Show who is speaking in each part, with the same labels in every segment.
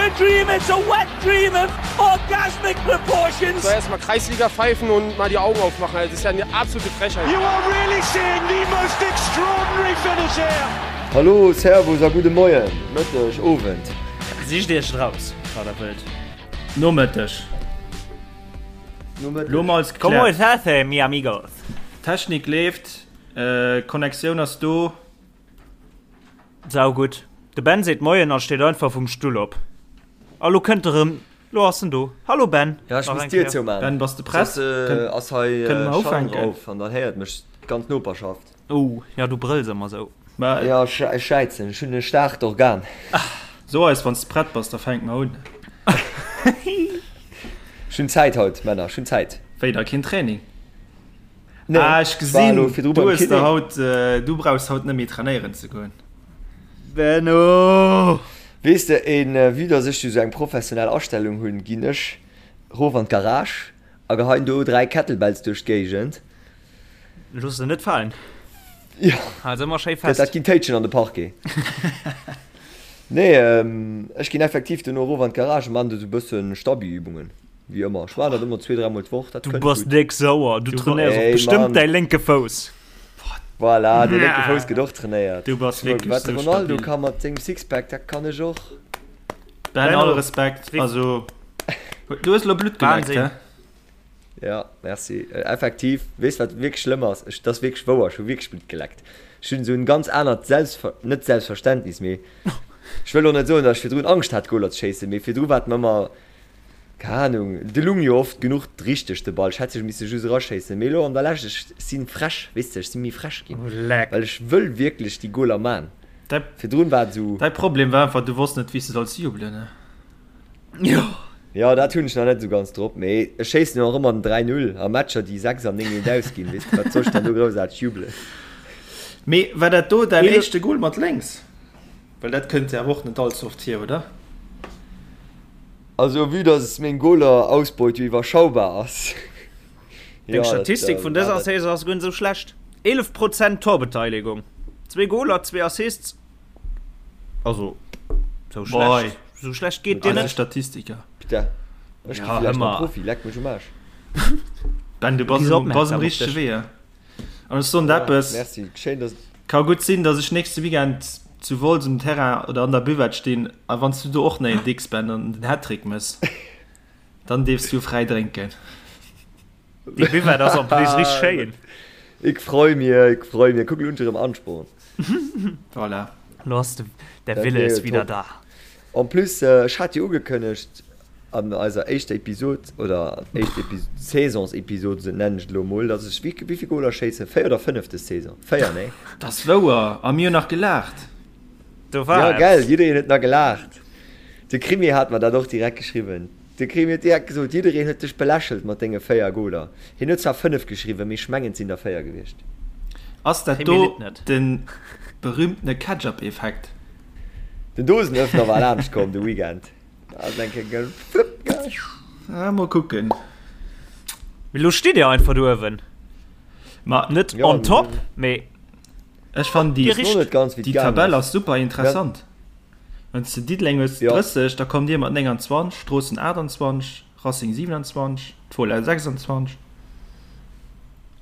Speaker 1: a dream, it's a wet dream of orgasmic proportions.
Speaker 2: So erstmal Kreisliga pfeifen und mal die Augen aufmachen. Das ist ja eine absolute Frechheit.
Speaker 1: You are really seeing the most extraordinary finish here.
Speaker 3: Hallo, Servus a gudde Moien, Mëtteg, Owend.
Speaker 4: Sicht iech et raus, wat der wëllt.
Speaker 5: Nomëtteg.
Speaker 3: Nomëtteg.
Speaker 5: Lo mol als
Speaker 4: Como
Speaker 5: gekläert.
Speaker 4: estás, mi amigos?
Speaker 5: Technik leeft, Connectioun ass do.
Speaker 4: Sau gutt. De Ben seet Moien a steet einfach vum Stull op. A lo kënnt e rëm. Lo ass en do. Hallo Ben.
Speaker 3: Ja, ech
Speaker 4: Nach
Speaker 3: muss
Speaker 4: eng
Speaker 3: d'Dier
Speaker 4: Kéier.
Speaker 3: zoumaan.
Speaker 5: Ben, bass de prett?
Speaker 3: Soss ass hei
Speaker 5: Kënne mer
Speaker 3: Schall
Speaker 5: ufänken?
Speaker 3: drauf an dann héiert mech d'ganz Noperschaft.
Speaker 4: Oh, ja, du brëlls ëmmer sou.
Speaker 5: Ma
Speaker 3: Ja, ech schäizen. Ech hunn e staarkt Organ.
Speaker 5: so eis, wann s de prett bass, da fänke mer un.
Speaker 3: Ech hunn Zäit haut, Männer. Ech hunn Zäit.
Speaker 5: Wéi, da keen Training?
Speaker 3: Nee,
Speaker 5: Ah, ech
Speaker 3: war elo
Speaker 5: gesinn,
Speaker 3: virdru
Speaker 5: du
Speaker 3: beim
Speaker 5: hues der
Speaker 3: Kiné.
Speaker 5: haut, du brauchs haut net méi trainéieren ze goen.
Speaker 4: Benno!
Speaker 3: Weess de, en vue dass ech jo sou eng professionell Astellung hunn, ginn ech rof an d'Garage a geheien do 3 Kettlebells duerch d'Géigend.
Speaker 4: Looss se net falen.
Speaker 3: Jo,
Speaker 4: Hal se ëmmer schéi
Speaker 3: dat
Speaker 4: fest.
Speaker 3: dat ginn Téitschen an de Parquet. Nee, ech ginn effektiv dono erof an d'Garage a man do sou bëssen Stabi-Übungen. Wéi ëmmer, ech maachen dat ëmmer zwee, dräimol d'Woch, dat
Speaker 4: Du
Speaker 3: kënnt
Speaker 4: bass
Speaker 3: gutt.
Speaker 4: déck sauer, du trainéiers och
Speaker 3: Ey,
Speaker 4: bestëmmt
Speaker 3: Mann.
Speaker 4: däi lénke Fouss.
Speaker 3: Voilà, de lénke Fouss gëtt och trainéiert.
Speaker 5: Du bass wierklech
Speaker 3: Wat de
Speaker 5: sou
Speaker 3: Ronaldo
Speaker 5: stabil.
Speaker 3: ka mat sengem Sixpack, dat kann ech och.
Speaker 5: Ben,
Speaker 4: Benno,
Speaker 5: all Respekt,
Speaker 4: wéi.
Speaker 5: also du hues elo Blutt geleckt,
Speaker 4: Wahnsinn.
Speaker 5: he?
Speaker 3: Ja, merci. Effektiv, weess wat wierklech schlëmm ass? Ech, dat ass wierklech wouer, ech hu wierklech Blutt geleckt. Ech hunn esou en ganz anert Selbstver-, net Selbstverständnis, mee ech wëll och net soen, datt ech virdrun Angscht hat Goler ze schéissen, mee virdru war et mer ëmmer, Keng Ahnung, de lung jo oft genuch richteg de Ball, ech hätt sech misse just eraschéissen, mee elo an der Lescht, ech sinn frech, weess de, ech sinn méi frech ginn, well ech wëll wierklech déi Goler man. Virdrun war et esou.
Speaker 5: Däi Problem war einfach, du wosst net wéi s de solls jubelen, ne?
Speaker 4: Jo.
Speaker 3: Jo, dat hunn ech nach net esou ganz drop, mee ech schéissen jo och ëmmer den 3, 0 a Matcher déi 6 an 9 eent ausginn, weess de, wat soll ech dann do groussaarteg jubelen?
Speaker 5: Mee war dat do däin éischte Goal mat lénks? Well dat kënnt jo awer och net all ze oft vir, oder?
Speaker 3: Also vue dass meng Goler-Ausbeut jo iwwerschaubar ass.
Speaker 4: Deng Statistik vun dëser Saison ass guer net esou schlecht, 11 Prozent Torbeteiligung, zwee Goler, zwee Assists, also sou schlecht, sou schlecht geet dir net.
Speaker 5: Statistiker.
Speaker 3: Putain, ech gi villäicht nach Profi, leck mech um Aarsch.
Speaker 5: Ben, du bass um richtege Wee. An ech soen der eppes,
Speaker 3: Merci, schéin dass.
Speaker 5: Ka gutt sinn, dass ech nächste Weekend zu Wolz um Terrain oder an der Buvette stinn a wann s du do och nach een dicks Ben an den Hattrick mëss, dann dierfs du fräi drénken.
Speaker 4: Déi Buvette ass en plus richteg schéin.
Speaker 3: Ik freu mir, ik freu mir. Kuck, elo hunn ech erëm Ansporn.
Speaker 5: Voilà.
Speaker 4: Lo ass de, der
Speaker 3: Dat
Speaker 4: Wille
Speaker 3: wier
Speaker 4: ist
Speaker 3: jo
Speaker 4: wieder
Speaker 3: top.
Speaker 4: da.
Speaker 3: En plus, ech hat jo ugekënnegt an eiser éischter Episod, oder éischt Epi Saisonsepisod, esou nennen ech et elo emol, dass ech wéi wéivill Goler schéissen? 4 oder 5 des Saison? 4, nee?
Speaker 5: Dat ass wouer, a mir hunn nach gelaacht.
Speaker 4: Do war
Speaker 3: Ja,
Speaker 4: eppes.
Speaker 3: gell, jiddereen huet nach gelaacht. De Krimi hat mer dat och direkt geschriwwen. De Krimi huet direkt gesot, jiddereen huet dech belächelt mat denge 4 Goler. Hien huet zwar 5 geschriwwen, mee ech mengen et sinn der 4 gewiescht.
Speaker 5: Ass dat
Speaker 4: Krimi
Speaker 5: do
Speaker 4: litt net.
Speaker 5: de berühmtene Ketchup-Effekt?
Speaker 3: Den Dosenöffner war laanscht komm de Weekend. Da ass eng Kéier gefluppt gaang.
Speaker 5: Ah, mol kucken.
Speaker 4: Mee lo steet dir einfach do uewen.
Speaker 5: Ma
Speaker 4: Net
Speaker 3: Ja,
Speaker 4: on top, mee
Speaker 5: ech fannen déi,
Speaker 4: Dir
Speaker 3: Weess och net ganz, wéi et
Speaker 5: déi
Speaker 3: gaangen
Speaker 5: Tabell
Speaker 3: ass.
Speaker 5: ass super interessant. Wann s de Diddeleng hues
Speaker 3: Ja.
Speaker 5: 30, da kommt dir mat 29, Stroossen 28, Racing 27, d'Fola 26.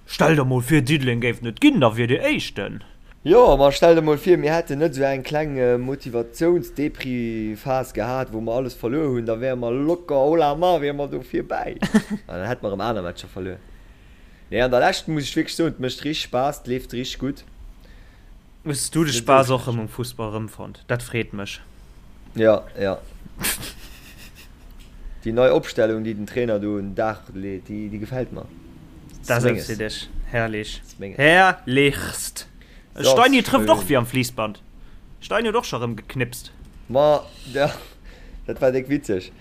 Speaker 4: Stell der mol vir Diddeleng géif net ginn, da wier dir éischten.
Speaker 3: Jo, ma stell der mol vir mir hätten net esou eng kleng Motivatiouns-Depri-Phas gehat, wou mer alles verluer hunn, da wäre mer locker, oh la ma, wiere mer do virbäi. An dann hätte mer erëm aner Matcher verluer. Nee, an der Lescht muss ech wierklech soen, et mécht richteg Spaass, et leeft richteg gutt.
Speaker 4: Hues du de Spaass och rëm um Fussball rëmfonnt? Dat freet mech.
Speaker 3: Ja, ja. Déi nei Opstellung, déi den Trainer do un den Dag leet, déi, déi gefält mer.
Speaker 4: Dat ass eppes fir dech. Herrlich. Herrlichst. Steini trëfft och wéi am Fliissband. Steini huet och scho rëm geknipst.
Speaker 3: Ma, ja, dat war déck witzeg.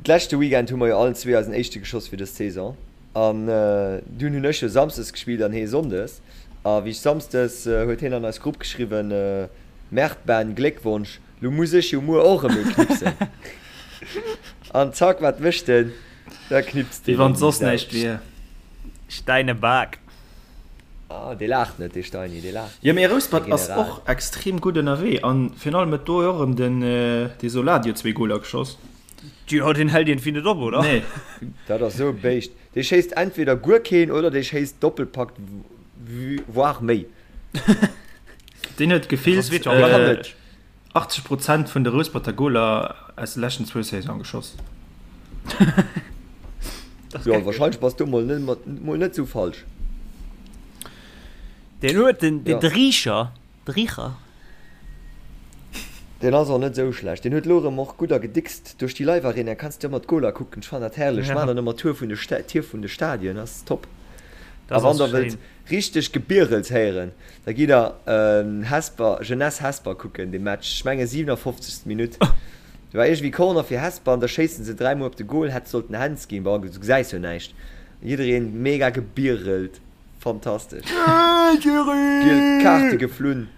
Speaker 3: D'leschte Weekend hu mer jo allen zwee eisen éischte geschoss fir dës Saison. An dunn hunn ech jo Samsdes gespillt an hee Sonndes. A wéi ech Samsdes, huet heen an eis Grupp geschriwwen, Merde Ben, Gléckwonsch, lo muss ech jo muer och erëm ee knipsen. An zack, wat mécht en? Da knipst
Speaker 5: Wéi
Speaker 3: deen
Speaker 5: wann
Speaker 3: eng
Speaker 5: soss
Speaker 3: Sau.
Speaker 5: näischt wier.
Speaker 4: Steinebak.
Speaker 3: Ah, dee laacht net, dee Steini, dee laacht.
Speaker 5: Jo, mee Rouspert ass och extrem gutt ënnerwee an virun allem huet do jo och erëm den dee Soladio zwee Goler geschoss.
Speaker 4: Jo, deen hält iergendwéi net op, oder?
Speaker 5: Nee.
Speaker 3: Dat ass esou e Béischt. Dee schéisst entweder guer keen oder dee schéisst Doppelpack voire méi.
Speaker 5: Deen huet gefillt 80 Prozent vun de Rousperter Goler aus de leschten zwou Saisone geschoss.
Speaker 3: Jo, wahrscheinlech bass du mol net, mol net sou falsch.
Speaker 4: Deen huet den, den ja. Richer, de Richer.
Speaker 3: Deen ass och net sou schlecht. Deen huet lo erëm och gutt a gedickst. Duerch déi Live Arena kanns du ëmmer d'Goler kucken. Ech fannen dat herrlech. Ech maachen dann ëmmer Tour vun de Sta Tier vun de Stadien. Ass top. A wann der wëllt richteg Gebierels héieren, da gitt der Hesper, Jeunesse Hesper kucken, dee Match. Ech menge 57. Minutt. Do war iergendwéi Corner fir Hesper an da schéissen se 3 mol op de Goal, hätt sollten Hands ginn, bon du gesäis jo näischt. Jiddereen mega gebierelt, fantastesch. Giel Kaarte geflunn,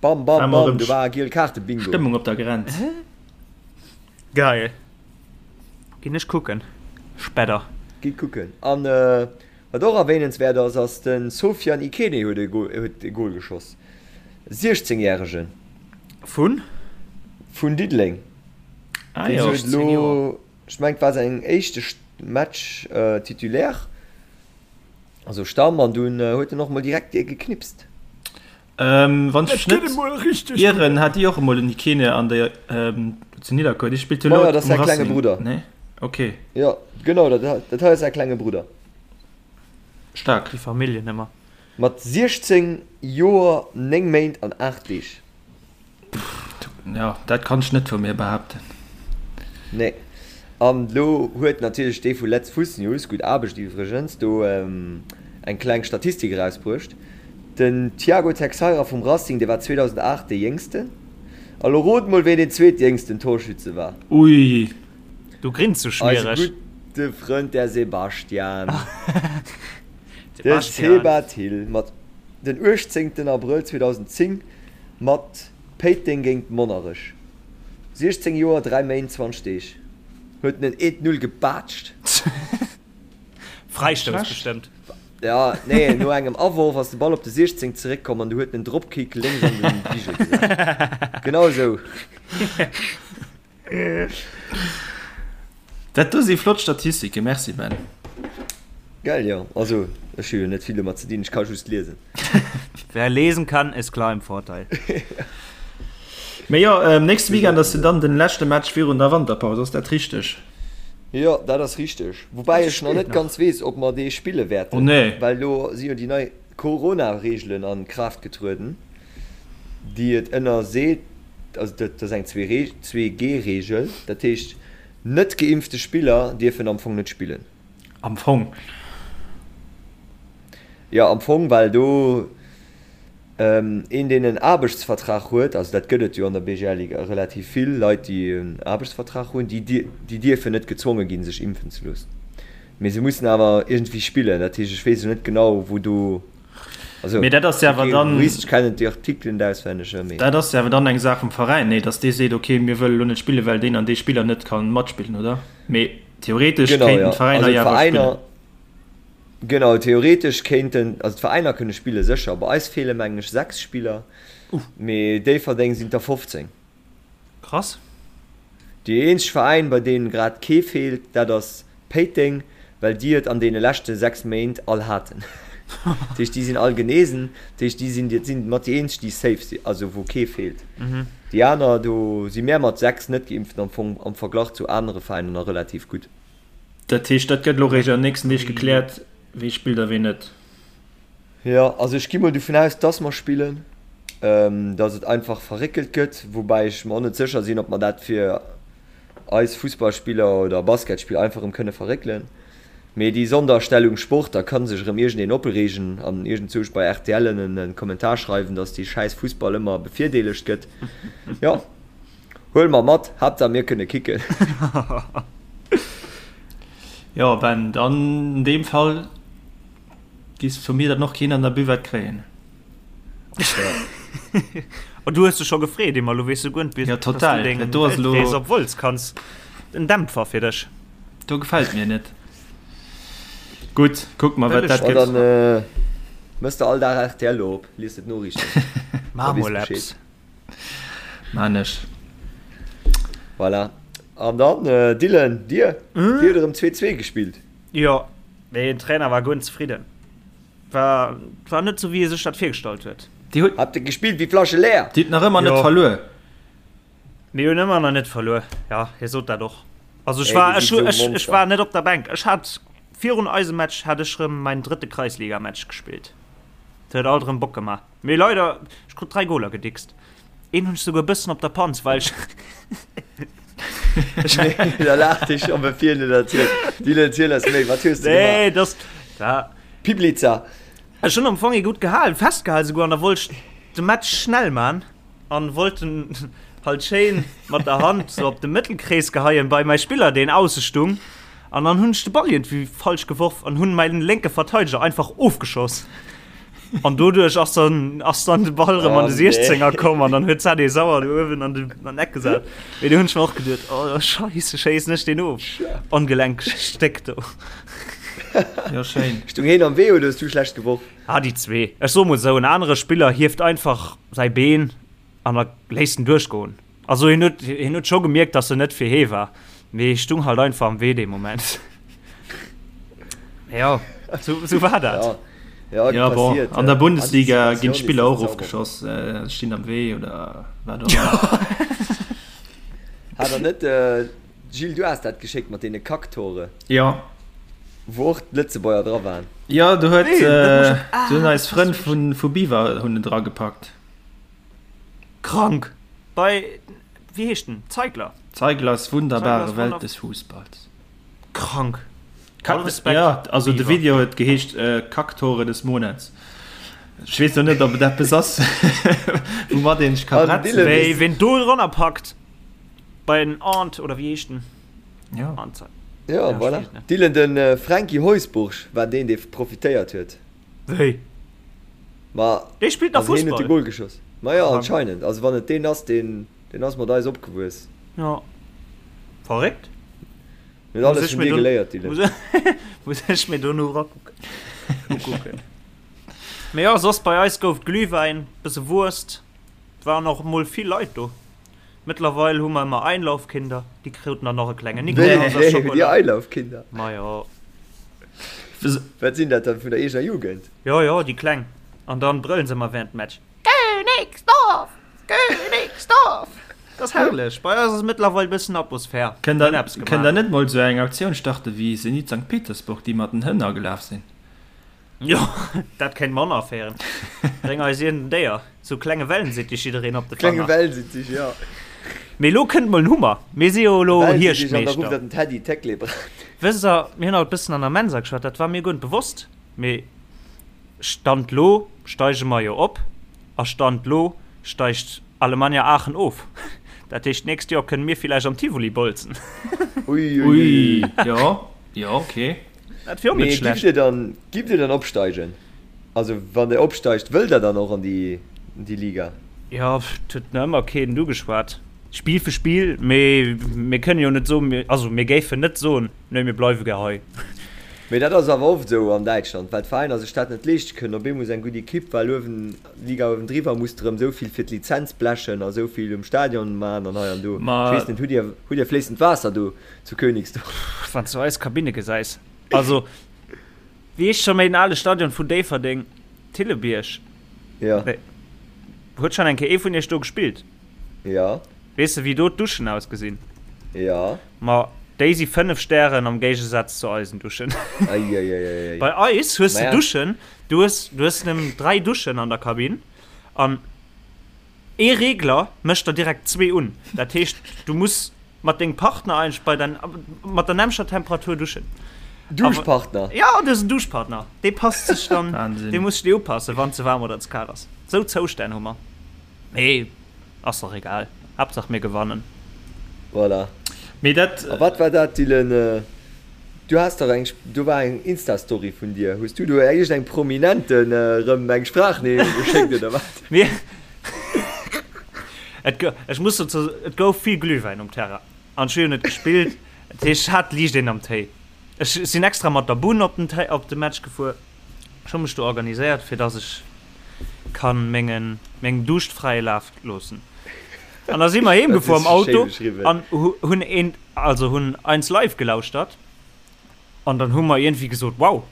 Speaker 3: bam bam bam, do war Giel Kaarte Bingo.
Speaker 5: Stëmmung op der Grenz.
Speaker 4: Geil. Ginn ech kucken spedder.
Speaker 3: Gitt kucken. An wat och erwähnenswäert ass, ass de Sofiane Ikene huet e Goal geschoss, 16 järegen.
Speaker 4: Vun?
Speaker 3: Vun Diddeleng.
Speaker 5: Ah jo.
Speaker 3: Deen huet elo, ech mengen et war säin éischte Match Titulaire, also Stamm, an dunn huet en och mol direkt ee geknipst.
Speaker 5: Wann ech mech net ieren, hat Dir och emol den Ikene an der zu Nidderkuer. Dee spillt jo elo
Speaker 3: um
Speaker 5: Racing.
Speaker 3: Klenge Brudder.
Speaker 5: Nee? Okay.
Speaker 3: Jo, genau, dat hei ass säi klenge Brudder.
Speaker 5: Staark.
Speaker 4: Déi Familljen ëmmer.
Speaker 3: Mat 16 Joer, 9 Méint an 8 Deeg.
Speaker 5: Jo, dat kann ech net vu mir behaapten.
Speaker 3: Nee. An elo huet natierlech dee vu Letz Fuss News, gutt Aarbecht iwwregens, do eng kleng Statistik erausbruecht. Den Tiago Texeira vum Racing, dee war 2008 dee Jéngsten. A lo rot mol, ween deen zweetjéngsten Torschütze war.
Speaker 5: Ui.
Speaker 4: Du grins sou
Speaker 3: Eise
Speaker 4: schmiereg.
Speaker 3: gudde Frënd, der Sebastian. De Seba Thill mat den 18 Abrëll 2010 mat Péiteng géint Monnerech, 16 Joer 3 Méint 20 Deeg, huet en en 1, 0 gebaatscht.
Speaker 4: Fräistouss bestëmmt.
Speaker 3: Ja, nee, no engem Aworf ass de Ball op de 16 zeréckkomm an du huet en en Dropkick lénks an den Bigel gesat. Genau esou.
Speaker 5: Dat do si flott Statistiken, merci Ben.
Speaker 3: Geil, jo. Also ech hu jo net vill domat ze dinn, ech ka just liesen.
Speaker 4: Wer lesen kann, ist klar im Vorteil.
Speaker 5: Mee jo, nächste Weekend ass jo dann den leschte Match virun der Wanterpaus, ass dat richteg?
Speaker 3: Jo, dat ass richteg. Woubäi ech nach net ganz weess, ob mer dee spille wäerten, well elo si jo déi nei Corona-Reegelen a Kraaft getrueden. déi et ënnerseet, also dat ass eng 2G-Reegel, dat heescht net geimpfte Spiller dierfen am Fong net spillen.
Speaker 5: Am Fong?
Speaker 3: Jo, am Fong, well do een, deen en Aarbechtsvertrag huet, also dat gëtt et jo an der BGL-Liga relativ vill Leit, déi en Aarbechtsvertrag hunn, déi dierfen net gezwonge ginn, sech impfen ze loossen. Mee se mussen awer iergendwéi spillen, dat heescht, ech weess elo net genau, wou do.
Speaker 5: Also, mee dat ass jo awer dann.
Speaker 3: Jurist, ech kennen déi Artikelen net auswenneg,
Speaker 5: mee. Dat ass jo awer dann eng Saach vum Veräin, nee? Datt dee seet, okay, mir wëlle lo net spillen, well deen an dee Spiller net ka matspillen, oder? Mee theoretesch
Speaker 3: Genau,
Speaker 5: kéinten
Speaker 3: ja.
Speaker 5: d'Veräiner
Speaker 3: Also
Speaker 5: jo awer spillen.
Speaker 3: d'Veräiner, genau, theoretesch kéinten, also d'Veräiner kënne spillen, sécher. Bei eis feele mengen ech 6 Spiller, mee Déifferdeng sinn der 15.
Speaker 4: Krass.
Speaker 3: Déi eenzeg Veräin, bei deem grad kee feelt, dat ass Péiteng, well déi et an deene leschte 6 Méint all haten. Dat heescht, déi sinn all genesen. Dat heescht, déi sinn, dat sinn mat déi eenzeg, déi safe sinn, also wou kee feelt. Déi aner, do si mär mat 6 Net-Geimpften am Fong am Verglach zu anere Veräiner nach relativ gutt.
Speaker 5: Dat heescht, dat gëtt elo réischt an den nächsten Deeg gekläert, wee spillt a wee net.
Speaker 3: Jo, also ech gi mol dovun aus, dass mer spillen, dass et einfach verréckelt gëtt, woubäi ech mer och net sécher sinn, ob mer dat fir eis Fussballspiller oder Basketspiller einfach erëm kënne verréckelen. Mee déi Sonderstellung Sport, da ka sech erëm iergendeen opreegen an iergendzousch bei rtl en Kommentar schreiwen, dass dee schäiss Fussball ëmmer bevirdeelegt gëtt. Jo, huele mer mat, Haaptsaach mir kënne kicken.
Speaker 5: Jo Ben, dann an deem Fall. Giss vu mir dann och keen an der Buvette kréien.
Speaker 4: Oh, du hues dech scho gefreet, Emma, lo weess du guer net,
Speaker 5: Ja, total.
Speaker 4: Dass du
Speaker 5: Dat do ass elo.
Speaker 4: Weltrees op Wolz kanns. En Dämpfer fir dech.
Speaker 5: Do gefält mir net. Gutt, kucke mer, wat dat
Speaker 3: gëtt. Mëss de all Dag rtl lo op, lies de d'Noriichten.
Speaker 4: Maach mol eppes.
Speaker 5: Maan ech.
Speaker 3: Voilà. An dann, Dylan, dir? Dir hutt erëm 2, 2 gespillt.
Speaker 4: Jo, mee den Trainer war guer net zefridden. War, war net sou wéi e sech dat virgestallt huet.
Speaker 5: Dir hutt.
Speaker 3: Habt der gespillt wéi Flasche leer?
Speaker 5: Dir hutt nach ëmmer net verluer.
Speaker 4: Mir hunn ëmmer nach net verluer. Jo, hie sot dat och. Also ech war, ech, ech, ech war net op der Bänk. Ech hat virun eisem Match hat ech rëm mäin drëtte Kreisligamatch gespillt. Dat huet alt erëm Bock gemaach. Mee leider, ech krut 3 Goler gedickst. Een hunn ech souguer e bëssen op der Panz, well ech.
Speaker 3: Nee, da laacht ech op e vir net erzielt. Dylan, erziel eis méi, wat hues de gemaach?
Speaker 4: Nee, dass, da.
Speaker 3: Piblica.
Speaker 4: Ech hunn am Fong ee gutt gehalen, festgehalen souguer, an da wollt ech de Match schnell man. An wollt en halt schéin mat der Hand sou op de Mëttelkrees geheien bei mäi Spiller deen ausse stung an dann hunn ech de Ball iergendwéi falsch geworf an hunn mäin lénke Verteideger einfach ofgeschoss an doduerch ass dann ass dann de Ball rëm an de 16er komm an dann huet d'Sade Sauer do uewen an de an Eck gesat. Mee do hunn ech mer och geduet, oh Scheisse, schéissen ech deen of, ongelenkegt Stéck do.
Speaker 5: Jo schéin.
Speaker 3: Stung heen am Wee oder hues du schlecht geworf?
Speaker 4: Ah, déi zwee. Ech soe mol esou, en anere Spiller hieft einfach säi Been an da léisst en duerchgoen. Also hien huet, hien huet scho gemierkt, datt en net fir hee war, mee stung halt einfach am Wee dee Moment. Jo, sou, sou war dat.
Speaker 3: Ja, ja,
Speaker 5: Ja, bon,
Speaker 3: passiert.
Speaker 5: an der Bundesliga ginn
Speaker 3: Anticipatioun ist
Speaker 5: d'Spiller
Speaker 3: das
Speaker 5: och
Speaker 3: Zauberwort.
Speaker 5: ofgeschoss, stinn am Wee oder wat och ëmmer.
Speaker 3: Hat der net, Gilles, du has dat geschéckt mat deene Kacktore?
Speaker 5: Jo.
Speaker 3: Wou och d'Lëtzebuerger dra waren.
Speaker 5: Jo, do huet,
Speaker 4: Nee, dat muss ech,
Speaker 5: do hunn
Speaker 4: ah,
Speaker 5: eis Frënn vu vu Biwer hunn en dragepackt.
Speaker 4: Krank! Bei, wéi heescht en? Zeigler?
Speaker 5: Zeiglers wunderbare
Speaker 4: Zeiglers
Speaker 5: Welt
Speaker 4: wunder.
Speaker 5: des Fußballs.
Speaker 4: Krank! All Respekt,
Speaker 5: Ja, also de
Speaker 4: Biwer.
Speaker 5: Video huet geheescht Kacktore des Monats. Ech weess lo net, ob et eppes ass, woumat een sech ka
Speaker 3: An
Speaker 5: bretzen.
Speaker 3: Dylan,
Speaker 4: Wéi, ween do drënner packt, bei den Arndt, oder wéi heescht en?
Speaker 5: Ja.
Speaker 4: Arndt.
Speaker 3: Ja,
Speaker 4: Ja,
Speaker 3: voilà.
Speaker 4: ech weess net.
Speaker 3: Dylan, de Franky Heusbourg war deen, dee profitéiert huet.
Speaker 4: Wéi?
Speaker 3: Ma,
Speaker 4: Dee spillt nach
Speaker 3: also hien huet de
Speaker 4: Fussball?
Speaker 3: Goal geschoss. Ma jo,
Speaker 4: Krank.
Speaker 3: anscheinend. Also wann et deen ass, deen, deen ass mat eis opgewuess.
Speaker 4: Ja. Verréckt.
Speaker 3: Mir huet
Speaker 4: Muss
Speaker 3: alles
Speaker 4: ech
Speaker 3: vun
Speaker 4: mir
Speaker 3: dir
Speaker 4: do,
Speaker 3: geléiert, Dylan.
Speaker 4: muss, muss ech mir do no rakucken. Ukucken. Mee jo, soss bei eis gouf et Glühwäin, bësse Wurst. Waren och mol vill Leit do. Mëttlerweil hu mer ëmmer Einlaufkinder, déi kruten dann och e klenge Nikolaus a
Speaker 3: Wéi, hutt dir
Speaker 4: Schokola.
Speaker 3: Einlaufkinder?
Speaker 4: Majo.
Speaker 3: Wat sinn dat dann, vun der eegener Jugend?
Speaker 4: Jo, jo, déi Kleng. An dann brëllen se ëmmer während dem Match, Königsdorf! Königsdorf! Dat ass herrlech. Bei eis ass mëttlerweil e bëssen Atmosphär.
Speaker 5: Kënnt
Speaker 4: Mir hunn
Speaker 5: der,
Speaker 4: eppes
Speaker 5: kënnt
Speaker 4: gemaach.
Speaker 5: der net mol sou eng Aktioun starte wéi Zenit Sankt Petersburg, déi mat den Hënn agelaf sinn?
Speaker 4: Jo, dat kéint mer aféieren. Bréng eis iergend en Déier, sou klenge Wellensittich, jiddereen op de
Speaker 3: Klenge
Speaker 4: Fanger.
Speaker 3: Wellensittich, jo.
Speaker 4: Mee elo kënnt mol en Hummer. Mir si jo elo
Speaker 3: Wellensittich an da rufft
Speaker 4: Hierschtmeeschter.
Speaker 3: der den Teddy Teclebrhan.
Speaker 4: Wësst der, mir hunn haut bëssen an der Mensa geschwat, dat war mir guer net bewosst, mee Stand lo steige mer jo op a Stand lo steigt Alemannia Aachen of. Dat heescht, d'nächst Joer kënne mir villäicht am Tivoli bolzen.
Speaker 3: Ui, ui,
Speaker 5: Ui,
Speaker 3: ui.
Speaker 5: jo, jo, okay.
Speaker 4: Dat wier och net
Speaker 3: Mee
Speaker 4: schlecht.
Speaker 3: giff dir dann, giff dir dann opsteigen? Also wann dir opsteigt, wëllt der dann och an déi, déi Liga?
Speaker 4: Jo, et huet nach ëmmer keen ugeschwat. Spill fir Spill, mee mir kënnen jo net soen, mir, also mir géifen net soen, nee mir bleiwe gär hei.
Speaker 3: Mee dat ass awer oft esou an Däitschland, well d'Veräiner sech dat net leeschte kënnen. Op eemol ass eng gutt Ekipp, well uewen, d'Liga uewendriwwer muss erëm esou vill fir d'Lizenz blechen a esou vill um Stadion man an hei an do. Ech weess net, hutt dir, hutt dir fléissend Waasser do Zu Königsdorf.
Speaker 4: Wann s du eis Kabinne gesäis. Also, wéi heescht scho méi den ale Stadion vun Déifferdeng? Thillebierg?
Speaker 3: Ja.
Speaker 4: Nee. Huet schonn eng Kéier ee vun iech do gespillt?
Speaker 3: Ja.
Speaker 4: Weess de, wéi do d'Duschen ausgesinn?
Speaker 3: Ja.
Speaker 4: Ma déi si 5 Stären am Géigesaz zu eisen Duschen.
Speaker 3: Eieieiei.
Speaker 4: Bei eis hues de
Speaker 3: Maja.
Speaker 4: Duschen, du hues, du hues nëmmen 3 Duschen an der Kabinn an Ee Regler mécht der direkt zwee un. Dat heescht, du muss mat dengem Partner eigentlech bei der, mat der nämmlecher Temperatur duschen.
Speaker 3: Duschpartner?
Speaker 4: Ja, du hues en Duschpartner. Dee passt sech dann,
Speaker 5: Wahnsinn.
Speaker 4: dee muss sech dir upassen, wann ze waarm oder ze kal ass. Sou Zoustänn hu mer. Mee ass och egal, Haaptsaach mir gewannen.
Speaker 3: Voilà.
Speaker 5: Mee dat.
Speaker 3: A wat war dat, Dylan? Du has dach eng, do war eng Insta-Story vun dir. Hues du do iergend engem Prominenten erëm eng Sprachneriicht geschéckt oder wat?
Speaker 4: Mir, et go, ech muss dozou, et gouf vill Glühwäin um Terrain an ech hu jo net gespillt, dat heescht ech hat liicht een am Téi. Ech sinn extra mat der Bunn op den Té, op de Match gefuer. Ech hu mech do organiséiert, fir dass ech kann mengen, mengem Duuscht fräie Laf loossen. An da si mer heem gefuer am Auto an hunn een, also hunn Eins Live gelauschtert. An dann hu mer iergendwéi gesot, wow,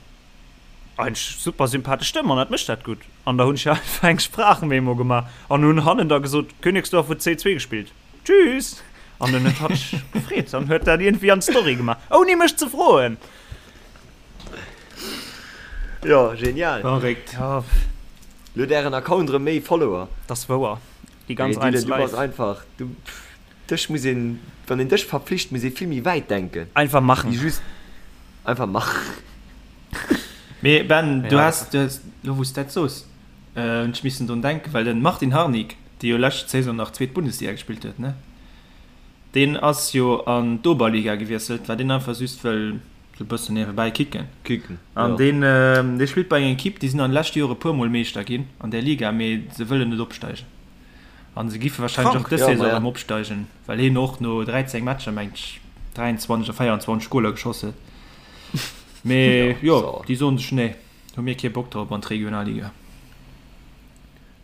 Speaker 4: eigentlech super sympathesch Stëmm an dat mécht dat gutt. An da hunn ech einfach eng Sprachmemo gemaach an hunn hannen da gesot, Königsdorf huet 2, 2 gespillt. Tschüss! An dann huet hatt sech gefreet an huet dat iergendwéi an d'Story gemaach, ouni mech ze froen.
Speaker 3: Jo, genial.
Speaker 5: Verréckt.
Speaker 4: Ja.
Speaker 3: Lo huet ären Account erëm méi Follower.
Speaker 4: Dat ass wouer. Déi ganz
Speaker 3: Mee
Speaker 4: Eins
Speaker 3: Dylan, du bass
Speaker 4: Live.
Speaker 3: einfach, du, dech muss een, wann een dech verpflicht, muss ee vill méi wäit denken.
Speaker 4: Einfach machen.
Speaker 3: Wéi just einfach machen.
Speaker 5: Mee Ben, du
Speaker 4: Ja.
Speaker 5: has, du has, lo wou s dat soos, hunn ech missen drun denken, well den Martin Harnik, dee jo lescht Saison nach zweet Bundesliga gespillt huet, ne? Deen ass jo an d'Oberliga gewiesselt, well deen einfach just wëll sou e bëssen niewebäi kicken.
Speaker 3: Kicken,
Speaker 5: An
Speaker 3: jo.
Speaker 5: deen, dee spillt bei enger Ekipp, déi sinn an de leschte Jore puer Mol Meeschter ginn an där Liga, mee se wëllen net opsteigen. An se giffe wahrscheinlech och
Speaker 4: Krank.
Speaker 5: dës
Speaker 3: Ja,
Speaker 5: Saison
Speaker 3: ma ja.
Speaker 5: erëm opsteigen, well hien och no 13 Matcher, mengt ech, 23 oder 24 Goler geschoss huet. Mee
Speaker 3: Ja,
Speaker 5: jo,
Speaker 3: so.
Speaker 5: déi soen sech, nee, hu mir kee Bock drop an d'Regionalliga.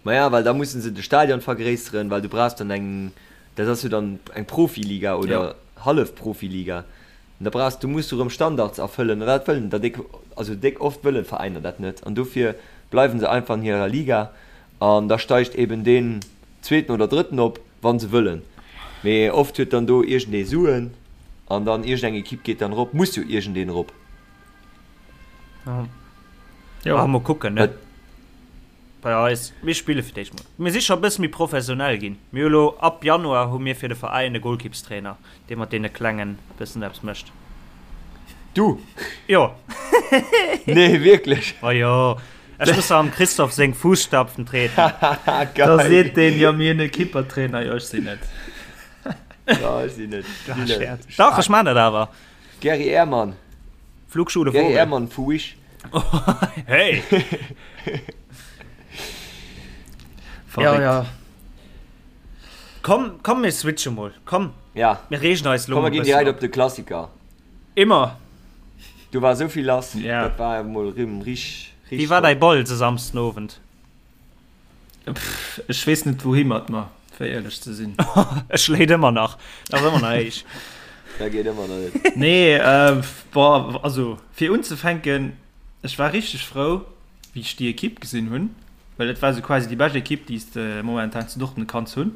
Speaker 3: Maja, well da mussen se de Stadion vergréisseren, well du brauchs dann eng, dat ass jo dann eng Profiliga oder Hallef-Profiliga, an da brauchs, du muss du erëm Standards erfëllen an dat wëllen der déck, also déck oft wëllen d'Veräiner dat net an dofir bleiwen se einfach an hirer Liga an da steigt eben deen zweeten oder drëtten op, wann se wëllen, mee oft huet dann do iergendee Suen an dann iergendeng Ekipp geet dann erop, muss jo iergendeen erop.
Speaker 4: Jo. Ah, mol kucken, ne? Bei eis, mir spille fir d'éischt mol. Mir si scho e bësse méi professionell ginn. Mir hu lo, ab Januar hu mir fir de Veräin e Golkippstrainer, dee mat deene Klengen e bëssen eppes mécht.
Speaker 3: Du?
Speaker 4: Jo.
Speaker 3: Nee, wierklech?
Speaker 4: Ma jo, ech muss am Christophe seng Fußstapfen treten.
Speaker 5: Da
Speaker 3: Geil.
Speaker 5: seet deen, jo, mir hunn e Kippertrainer. Jo, ech sinn et.
Speaker 3: Jo, ech sinn et.
Speaker 4: Ah, Scherz. Dach, ech man dat awer.
Speaker 3: Gary Ehrmann.
Speaker 4: Flugschule
Speaker 3: Gary
Speaker 4: Vogel.
Speaker 3: Ehrmann vu Wish.
Speaker 4: Hey!
Speaker 5: Verréckt.
Speaker 4: Ja, ja. Komm, komm, mir switche mol. Komm.
Speaker 3: Ja.
Speaker 4: Mir reegen eis lo
Speaker 3: Komm,
Speaker 4: mol
Speaker 3: mir ginn
Speaker 4: bëssen
Speaker 3: direkt
Speaker 4: op.
Speaker 3: op de Klassiker.
Speaker 4: Immer.
Speaker 3: Do war esou vill lass.
Speaker 5: Ja.
Speaker 3: Dat war mol rëm rich,
Speaker 4: Wéi
Speaker 3: rich
Speaker 4: war
Speaker 3: top.
Speaker 4: däi Ball se Samsden Owend?
Speaker 5: Pff, ech weess net wouhi mat mer, fir éierlech ze sinn.
Speaker 4: E schléit ëmmer nach. Dat ass ëmmer nach héich.
Speaker 3: Dat geet ëmmer nach net.
Speaker 5: Nee, äh, boah, also fir unzefänken, ech war richteg frou, wéi ech déi Ekipp gesinn hunn, well dat war sou quasi déi bescht Ekipp, déi s de momentan zu Dortmund kanns hunn.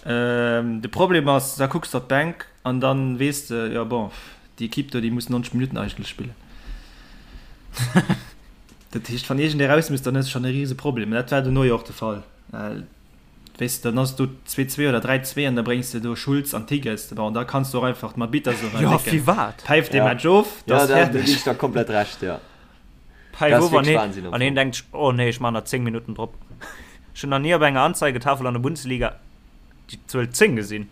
Speaker 5: Ähm, de Problem ass, da kucks de op d'Bänk an dann weess de, jo bon, déi Ekipp do, déi muss 90 Minutten eigentlech spillen. Dat heescht, wann iergendee raus muss, dann hues de schonn e rise Problem. Mä dat war dono jo och de Fall. Well, weess de, dann ass do 2-2 oder 3-2 an da bréngs de do Schulz an Tigges. Bon, da kanns de och einfach d'Mabita so
Speaker 4: Jo,
Speaker 5: décken.
Speaker 4: firwat?
Speaker 5: Päif dee
Speaker 3: Ja.
Speaker 5: Match of, da
Speaker 3: Ja,
Speaker 5: ass
Speaker 3: da, do ginn
Speaker 5: fäerdeg.
Speaker 3: ech der komplett Recht, ja.
Speaker 4: Päif
Speaker 3: Dat ass
Speaker 4: of an
Speaker 3: wierklech
Speaker 4: heen,
Speaker 3: Wahnsinn am
Speaker 4: an heen
Speaker 3: Fong.
Speaker 4: denkt sech, oh nee, ech man nach 10 Minutten drop. Ech hunn nach ni op enger Anzeigetafel an der Bundesliga déi Zuel 10 gesinn.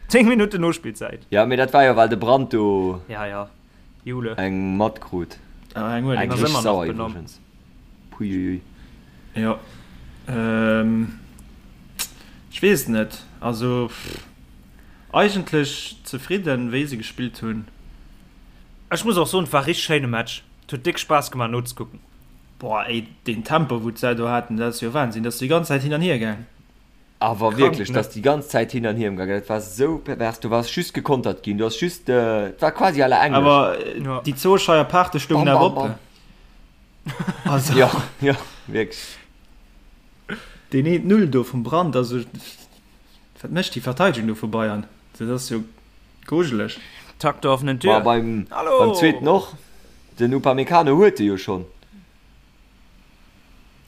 Speaker 4: 10 Minutten Nospillzäit.
Speaker 3: Ja, mee dat war jo, well de Brandt do
Speaker 4: Ja, ja. Jule.
Speaker 3: Eng matkrut.
Speaker 5: Ah, eng huet
Speaker 3: Eng
Speaker 4: ass
Speaker 3: richteg
Speaker 4: ëmmer nach
Speaker 3: sauer
Speaker 4: benommen.
Speaker 3: iwwregens. Puiuiui.
Speaker 5: Jo. Ähm, ech weess et net. Also, pff, eigentlech zefridden, wéi se gespillt hunn.
Speaker 4: Ech muss och soen, et war richteg schéine Match. Et huet déck Spaass gemaach nozekucken.
Speaker 5: Boah, ey, deen Tempo, wou d'Sau do haten, dat ass jo Wahnsinn. Dat ass déi ganz Zäit hin an hier gaang.
Speaker 3: Awer wierklech, dat ass déi ganz Zäit hin an hier gaangen. Dat war esou pervers. Du waars just gekontert ginn. Du ass just, et war quasi à la Englesch.
Speaker 5: Awer déi zwou Scheier Paarte stoungen awer op.
Speaker 3: Also. Jo, jo, wierklech.
Speaker 5: Deen eent Null do vum Brandt, also wat mécht déi Verteidegung do vu Bayern? Dat ass jo grujeleg.
Speaker 4: Takt der offenen Tür.
Speaker 3: Ma beim, beim zweeten och. Den Upamecano huet e jo schonn.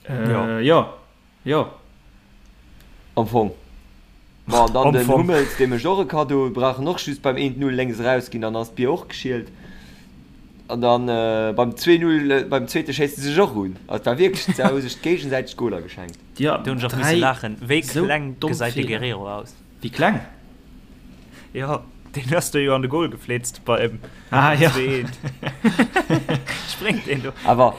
Speaker 5: Äh, jo. Jo.
Speaker 3: Am Fong. Bon, an dann
Speaker 4: Am
Speaker 3: den
Speaker 4: Fong.
Speaker 3: Hummels, dee mécht och e Kaddo, brauch en och just beim 1-0 lénks erausginn, dann ass d'Bier och geschielt. An dann beim 2-0, beim zweete schéisst e sech och un. Also et war wierklech, se hu sech géigesäiteg d'Goler geschenkt.
Speaker 5: Jo,
Speaker 4: Do hunn ech och misse
Speaker 5: 3
Speaker 4: laachen. Wéi
Speaker 5: sou
Speaker 4: kleng
Speaker 5: domm
Speaker 4: gesäit de
Speaker 5: Feeler.
Speaker 4: Guerrero aus?
Speaker 5: Wéi kleng?
Speaker 4: Jo, deen ass do jo an de Goal geflitzt beim
Speaker 5: Ah, jo.
Speaker 4: 2-1. Spréngt deen do.
Speaker 3: Awer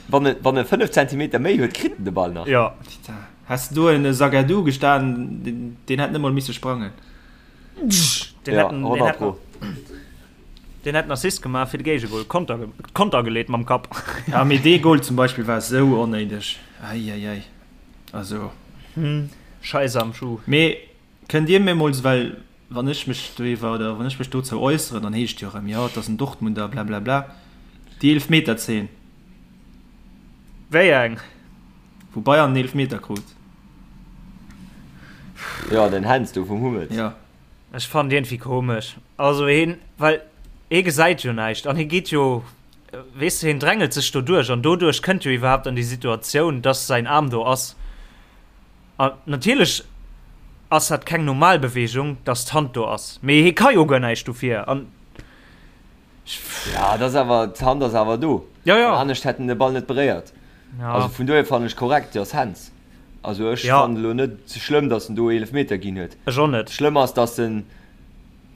Speaker 3: wann e, wann e 5 Zentimeter méi huet, kritt en de Ball nach.
Speaker 4: Jo.
Speaker 5: Putain, häss de do en Zagadou gestan, deen, deen hätt net mol misse sprangen.
Speaker 4: Deen
Speaker 3: Ja,
Speaker 4: hätt en, deen
Speaker 3: 100
Speaker 4: hätt
Speaker 3: pro.
Speaker 4: Deen hätt en Assist gemaach fir de Géigegol. Konter, Konter geleet mam Kapp.
Speaker 5: Ja, mee dee Goal zum Beispill war esou onnéideg. Eieiei. Also.
Speaker 4: Scheiss am Schuh.
Speaker 5: Mee kënnt Dir mir mol, well wann ech mech doriwwer oder wann ech mech dozou äusseren, dann heescht jo erëm, jo, et ass en Dortmunder, blablabla. Déi Eelefmeterzeen.
Speaker 4: Wéi eng?
Speaker 5: Wou Bayern en Eelefmeter krut.
Speaker 3: Jo, den Händs do vum Hummels.
Speaker 5: Jo.
Speaker 4: Ech fannen iergendwéi komesch. Also heen, well hee gesäit jo näischt an hee geet jo, weess de, heen drängelt sech do duerch an doduerch kënnt jo iwwerhaapt an déi Situatioun, dass säin Aarm do ass. An natierlech ass dat keng normal Beweegung, dass d'Hand do ass, mee hee ka jo guer näischt dofir an
Speaker 3: Ja, dat ass awer, d'Hand ass awer do.
Speaker 4: Ja, ja.
Speaker 3: An anescht hätt en de Ball net beréiert.
Speaker 4: Ja.
Speaker 3: Also vun dohier fannen ech korrekt, déi ass Hands. Also ech
Speaker 4: Ja.
Speaker 3: fannen elo net schlëmm, datt en do Eelefmeter ginn huet.
Speaker 4: Ech och net.
Speaker 3: Schlëmm ass, datt en,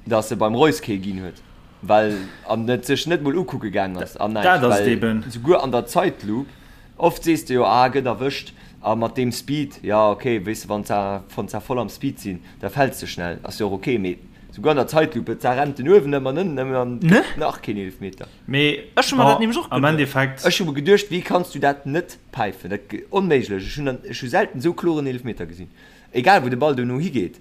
Speaker 3: datt e beim Reus kee ginn huet, well an et sech net mol ukucke gaang ass an näischt.
Speaker 5: Dat ass et
Speaker 3: Well
Speaker 5: eben.
Speaker 3: souguer an der Zeitlupe, oft sees de jo, ah gëtt erwëscht a mat deem Speed, ja okay, weess de, wann se, wann se voll am Speed sinn, da fäls de schnell, ass jo och okay, mee souguer an der Zeitlupe, et rennt en uewen ëm an ënnen ëm an
Speaker 4: Ne?
Speaker 3: gëtt nach keen Eelefmeter.
Speaker 5: Mee
Speaker 4: Ech hu mer dat
Speaker 5: bon,
Speaker 4: nämlech och
Speaker 5: am
Speaker 4: geduecht.
Speaker 5: Endeffekt.
Speaker 3: Ech hu mer geduecht, wéi kanns du dat net päifen? Dat onméiglech. Ech hunn ech hu selten esou kloren Eelefmeter gesinn. Egal wou de Ball dono higeet,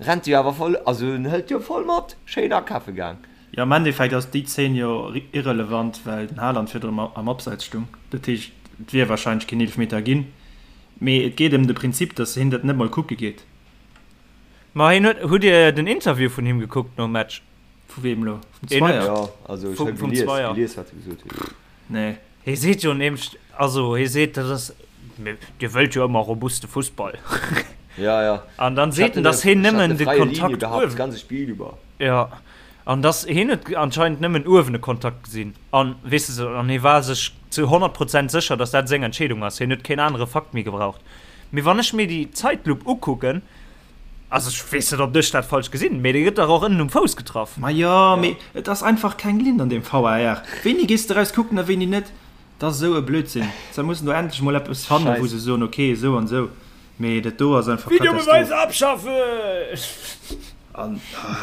Speaker 3: rennt e jo awer voll, also en hëlt jo voll mat. Schéin akafe gaang.
Speaker 5: Jo, am Endeffekt ass déi Zeen jo irrelevant, well den Haaland virdrun am Abseits stung. Dat heescht, et wier warscheinlech keen Eelefmeter ginn. Mee et geet ëm de Prinzip, datt hien dat net mol kucke geet.
Speaker 4: Ma hien huet, hutt Dir den Interview vun him gekuckt nom Match?
Speaker 5: Vu weem elo? Vum
Speaker 4: Een huet-
Speaker 5: Zweier?
Speaker 3: Jo, also ech
Speaker 4: Vum-
Speaker 3: hu
Speaker 4: vum
Speaker 3: gelies,
Speaker 4: Zweier.
Speaker 3: gelies wat e gesot huet.
Speaker 5: Nee.
Speaker 4: Hie seet jo nämlech, also hie seet, dat ass, Dir wëllt jo ëmmer robuste Fussball.
Speaker 3: Ja, ja.
Speaker 4: An dann seet en, datt hien nëmmen de Kontakt uewen.
Speaker 3: Das ganze Spiel über.
Speaker 4: Ja, an datt hien huet anscheinend nëmmen uewen e Kontakt gesinn. An weess de, an hie war sech zu 100 Prozent sécher, datt dat seng Entscheedung ass. Hien huet keen anere Fakt méi gebraucht. Mee wann ech mir déi Zeitlup ukucken, Also ech weess net ob ech dat falsch gesinn, mee dee gëtt dach och ënnen um Fouss getraff.
Speaker 5: Ma jo, mee et ass einfach keng Linn an deem VAR. Wéini gees de eraus kucken a wéini net? Dat ass esou e Blödsinn. Se mussen do endlech mol eppes fannen, wou se soen, ok, esou an esou. Mee dat do ass einfach
Speaker 4: Videobeweis abschaffen!
Speaker 5: An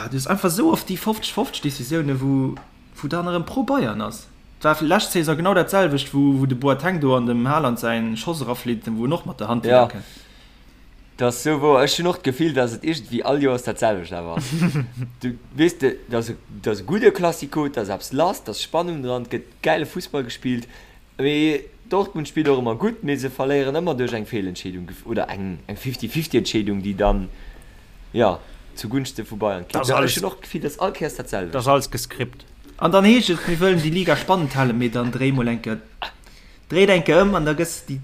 Speaker 5: du hues einfach esou oft déi 50, 50 Decisiounen, wou, wou dann erëm pro Bayern ass. Et war lescht Saison genau dat selwecht, wou, wou de Boateng do an dem Haaland säin Schoss eraflitt, wou en och mat der Hand
Speaker 3: widder
Speaker 5: kënnt.
Speaker 3: Dat ass sou wouer. Ech hunn och d'Gefill, dass et iergendwéi all Joers dat selwecht awer ass. Du, weess de, dat ass e, dat ass e gudde Classico, et ass eppes lass, et ass Spannung dran, et gëtt gäile Fussball gespillt. Mee Dortmund spillt och ëmmer gutt, mee se verléieren ëmmer duerch eng Feelentscheedung oder eng, eng Fifty-fifty-Entscheedung, déi dann, jo, zu Gunschte vu Bayern
Speaker 4: Dat
Speaker 3: kippt.
Speaker 4: ass alles,
Speaker 3: Ech hunn och d'Gefill, dass all Kéiers dat
Speaker 4: dat ass
Speaker 3: selwecht.
Speaker 4: alles gescript.
Speaker 5: An dann heescht et, mir wëllen déi Liga spannend halen, mee dann dréi mol eng Kéier Dréit eng Kéier ëm an da gëss déi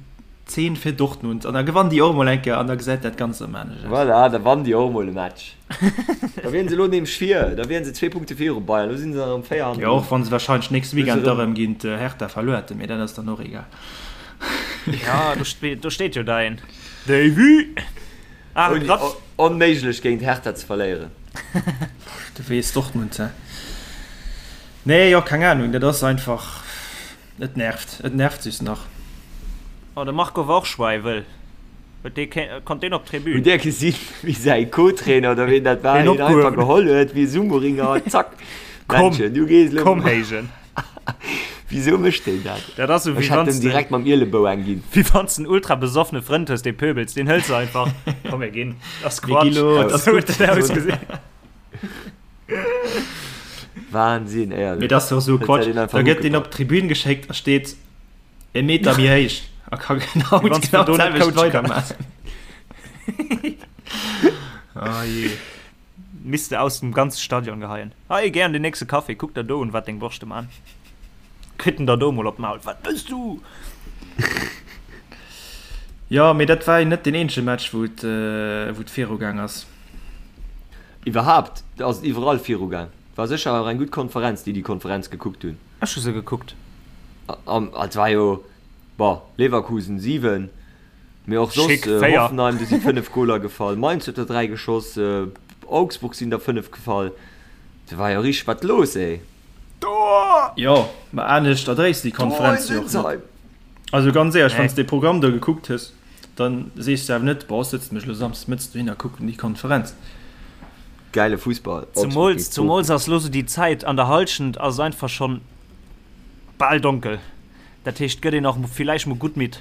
Speaker 5: Zeen fir Dortmund an da gewann déi och mol eng Kéier an da gesäit dat Ganzt erëm anescht aus.
Speaker 3: Voilà, da wann déi och mol e Match. Da wieren se elo nämlech vir, da wieren se zwee Punkte viru Bayern, elo sinn se erëm 4
Speaker 5: Jo,
Speaker 3: hannendrun.
Speaker 5: och wann se wahrscheinlech nächste
Speaker 3: Elo si
Speaker 5: Weekend da
Speaker 3: erëm.
Speaker 5: rëm géint Hertha verluer hätten, mee dat ass dann och egal.
Speaker 4: Ja, do steet, do steet jo däin Davy. Ah,
Speaker 3: Ouni,
Speaker 4: grad.
Speaker 3: onméiglech géint Hertha ze verléieren.
Speaker 5: Du weess, Dortmund, hä? Nee, jo, keng Ahnung, dat ass einfach. Et nervt, et nervt just nach.
Speaker 4: Oh, de Marco war och schweiwel. Huet dee kee, konnt deen op d'Tribün?
Speaker 3: Hutt Dir gesinn, wéi säi Co-Trainer oder ween dat war,
Speaker 4: Deen
Speaker 3: hien einfach
Speaker 4: opgehuewen.
Speaker 3: geholl huet wéi e Sumo-Ringer, zack,
Speaker 4: Komm,
Speaker 3: Männchen, du gees elo.
Speaker 4: komm héijen.
Speaker 3: Wisou mécht deen dat?
Speaker 4: Dat ass esou,
Speaker 3: Ech
Speaker 4: wéi
Speaker 3: hätt
Speaker 4: wann
Speaker 3: em
Speaker 4: s de,
Speaker 3: direkt mam Ielebou eng ginn.
Speaker 4: wéi wann s de en ultra besoffene Frënd hues, dee pöbels, deen hëls de einfach, komm mir ginn, dat ass
Speaker 5: Mir gi
Speaker 4: Quatsch.
Speaker 5: lo, et ass
Speaker 4: Esou huet
Speaker 5: gutt.
Speaker 4: dat ausgesinn.
Speaker 3: Wahnsinn, éierlech.
Speaker 5: Mee dat ass doch esou
Speaker 3: Huet
Speaker 5: Quatsch.
Speaker 3: säit een einfach
Speaker 5: Da gëtt deen op
Speaker 3: ugepackt.
Speaker 5: d'Tribün geschéckt a steet e Meter méi héich a ka genau
Speaker 4: Wéi wann s
Speaker 5: genau
Speaker 4: du do net
Speaker 5: d'selwecht
Speaker 4: coache kanns.
Speaker 5: weidermaachen. Oh jee.
Speaker 4: Misst de aus dem ganze Stadion geheien. Hei, gär an den nächste Café, kuck der do un, wat deng Borschte man. Kritt en der do mol op d'Maul. Wat bëss du?
Speaker 5: Jo, mee dat war jo net deen eenzege Match, wou et, wou et virugaang ass.
Speaker 3: Iwwerhaapt ass et iwwerall virugaang. War sécher och eng gutt Konferenz, déi déi Konferenz gekuckt hunn.
Speaker 4: Ech hu se gekuckt.
Speaker 3: An et war jo, bon, Leverkusen 7, mee och soss,
Speaker 4: Schick 4.
Speaker 3: Hoffenheim, do si 5 Goler gefall, Mainz huet der 3 geschoss, Augsburg sinn der 5 gefall. Do war jo richteg wat los, ey.
Speaker 4: Tor!
Speaker 5: Jo, ma anescht erdréis déi
Speaker 3: Tor in
Speaker 5: Konferenz jo och net.
Speaker 3: Sinsheim!
Speaker 5: Also ganz éierlech, wann
Speaker 4: Nee.
Speaker 5: s de dee Programm do gekuckt hues, dann sees de awer net, boah, ech sëtzen mech elo samsdes mëttes dohin a kucken déi Konferenz.
Speaker 3: Gäile Fussball.
Speaker 4: Zumools, zumools ass lo sou déi Zäit, an der Halschent ass et einfach schonn bal donkel. Dat heescht, gëtt een och villäicht mol gutt midd.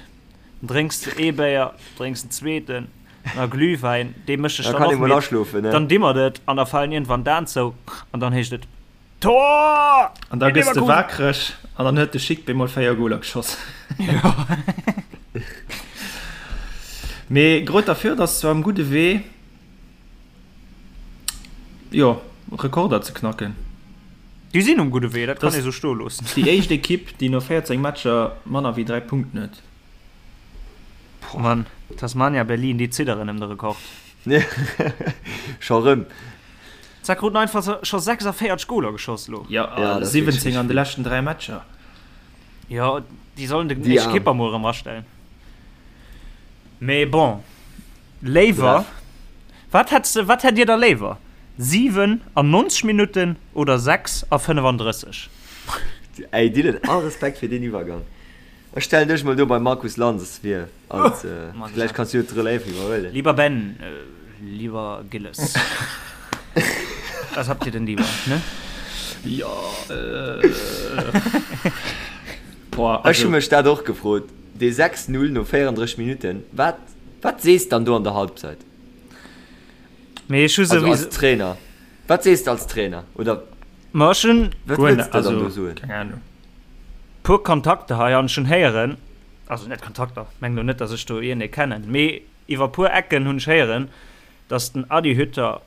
Speaker 4: Dann drénks de ee Béier, drénks en zweeten, na Glühwäin, dee mécht dech dann och midd. Dann dimmert et an da falen iergendwann d'Aen zou an dann heescht et, Tor!
Speaker 5: An da gëss de waakreg an dann huet de Schick bemol 4 Goler geschoss. Mee Greuther Fürth ass zwar um gudde Wee, jo, Rekorder ze knacken.
Speaker 4: Déi sinn um gudde Wee, dat kann ee sou stoe loossen.
Speaker 5: Déi éischt Ekipp, déi no 14 Matcher manner wéi 3 Punkten huet.
Speaker 4: Boah Mann, Tasmania Berlin, déi zidderen ëm de Rekord.
Speaker 3: Scho rëm.
Speaker 4: Zack kruten einfach scho 46 Goler geschoss lo.
Speaker 5: Jo, a 17 an de leschten 3 Matcher.
Speaker 4: Jo, déi sollen den éischte Kipper mol erëm astellen. Mee bon, léiwer, wat hätts de, wat hätt dir da léiwer, 7 an 90 Minutten oder 6 a 35?
Speaker 3: Ey Dylan, all Respekt fir deen Iwwergang. Ech stellen dech mol do beim Markus Lanz vir als, vläicht kanns du jo d'Relève iwwerhuelen.
Speaker 4: Lieber Ben, lieber Gilles, was habt ihr denn lieber, ne?
Speaker 5: Jo,
Speaker 3: boah, also. Ech hu mech dat och gefrot, dee 6, 0 no 34 Minutten, wat, wat sees dann do an der Halbzeit?
Speaker 4: Mee ech hu
Speaker 3: Also als Trainer, wat sees de als Trainer oder
Speaker 4: Ma ech hunn.
Speaker 3: Wat wëlls de dann do soen?
Speaker 5: Keng Ahnung.
Speaker 4: Puer Kontakter hei an ech hunn héieren, also net Kontakter, meng lo net, datt ech do iergendee kennen, mee iwwer puer Ecken hunn ech héieren, datt den Adi Hütter,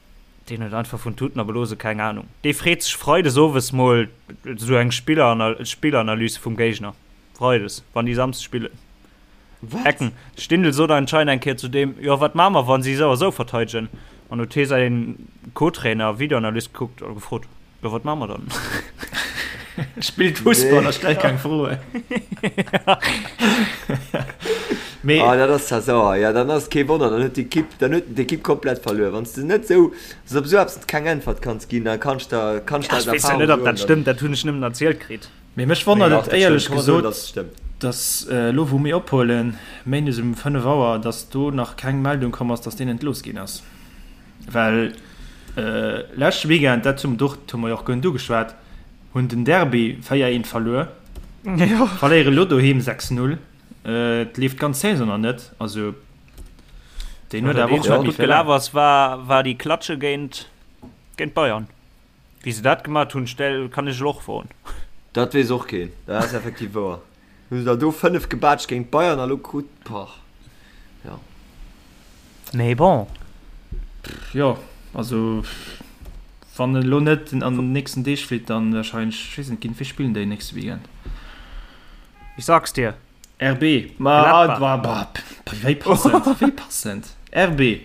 Speaker 4: deen huet einfach vun Tuten a Blose keng Ahnung, dee freet sech freides owes mol esou eng Spilleranalys vum Géigner, freides, wann déi samsdes spillen.
Speaker 3: Wat?
Speaker 4: Ecken. De Stindl sot anscheinend eng Kéier zu deem, Jo, wat maache mer, wa si esou a esou verteidegen? An huet hie säi Co-Trainer, Videoanalyst, gekuckt a gefrot, Jo, wat maache mer dann?
Speaker 5: Spillt Fussball a stellt keng Froen.
Speaker 3: Mee. Ah, dat ass zwar sauer. Ja, dann ass et kee Wonner, dann huet d'Ekipp, dann huet en d'Ekipp komplett verluer. Wann s de net esou, wann s de op esou eppes keng Äntwert kanns ginn, da kanns de, kanns de
Speaker 4: Ja,
Speaker 3: aus
Speaker 4: ech weess jo
Speaker 3: Erfahrung
Speaker 4: net, ob
Speaker 3: soen,
Speaker 4: dat
Speaker 3: dann.
Speaker 4: stëmmt, dat hunn ech nëmmen erzielt kritt.
Speaker 5: Mee mech wonnert
Speaker 3: Mee
Speaker 5: et
Speaker 3: dach, dat stëmmt.
Speaker 5: éierlech
Speaker 3: Ka man soen,
Speaker 5: gesot,
Speaker 3: datt et stëmmt.
Speaker 5: datt elo wou mir ophuelen, méindes um 5 Auer, datt do nach keng Meldung komm ass, datt deen entlooss ginn ass. Well leschte Weekend, dat hu hu mer jo och guer net ugeschwat, hunn den Derby 4, 1 verluer, verléiere elo doheem 6, 0. Et leeft d'ganz Saison nach net. Also deen huet awer och
Speaker 4: net méi gutt gelaf ass, war déi Klatsche géint Bayern. Wéi se dat gemat hunn, stell kann ech elo och froen.
Speaker 3: Dat weess och keen, dat ass effektiv wouer. Hu se der do 5 gebaatscht géint d'Bayern a lo krut, boah, jo.
Speaker 4: Mee bon.
Speaker 5: Jo, also wann en elo net an den nächsten Deeg flitt, dann wahrscheinlech, ech weess net, géint wie spillen déi nächste Weekend?
Speaker 4: Ich sag's dir.
Speaker 5: RB, ma bah, wéi passend, wéi passend. RB.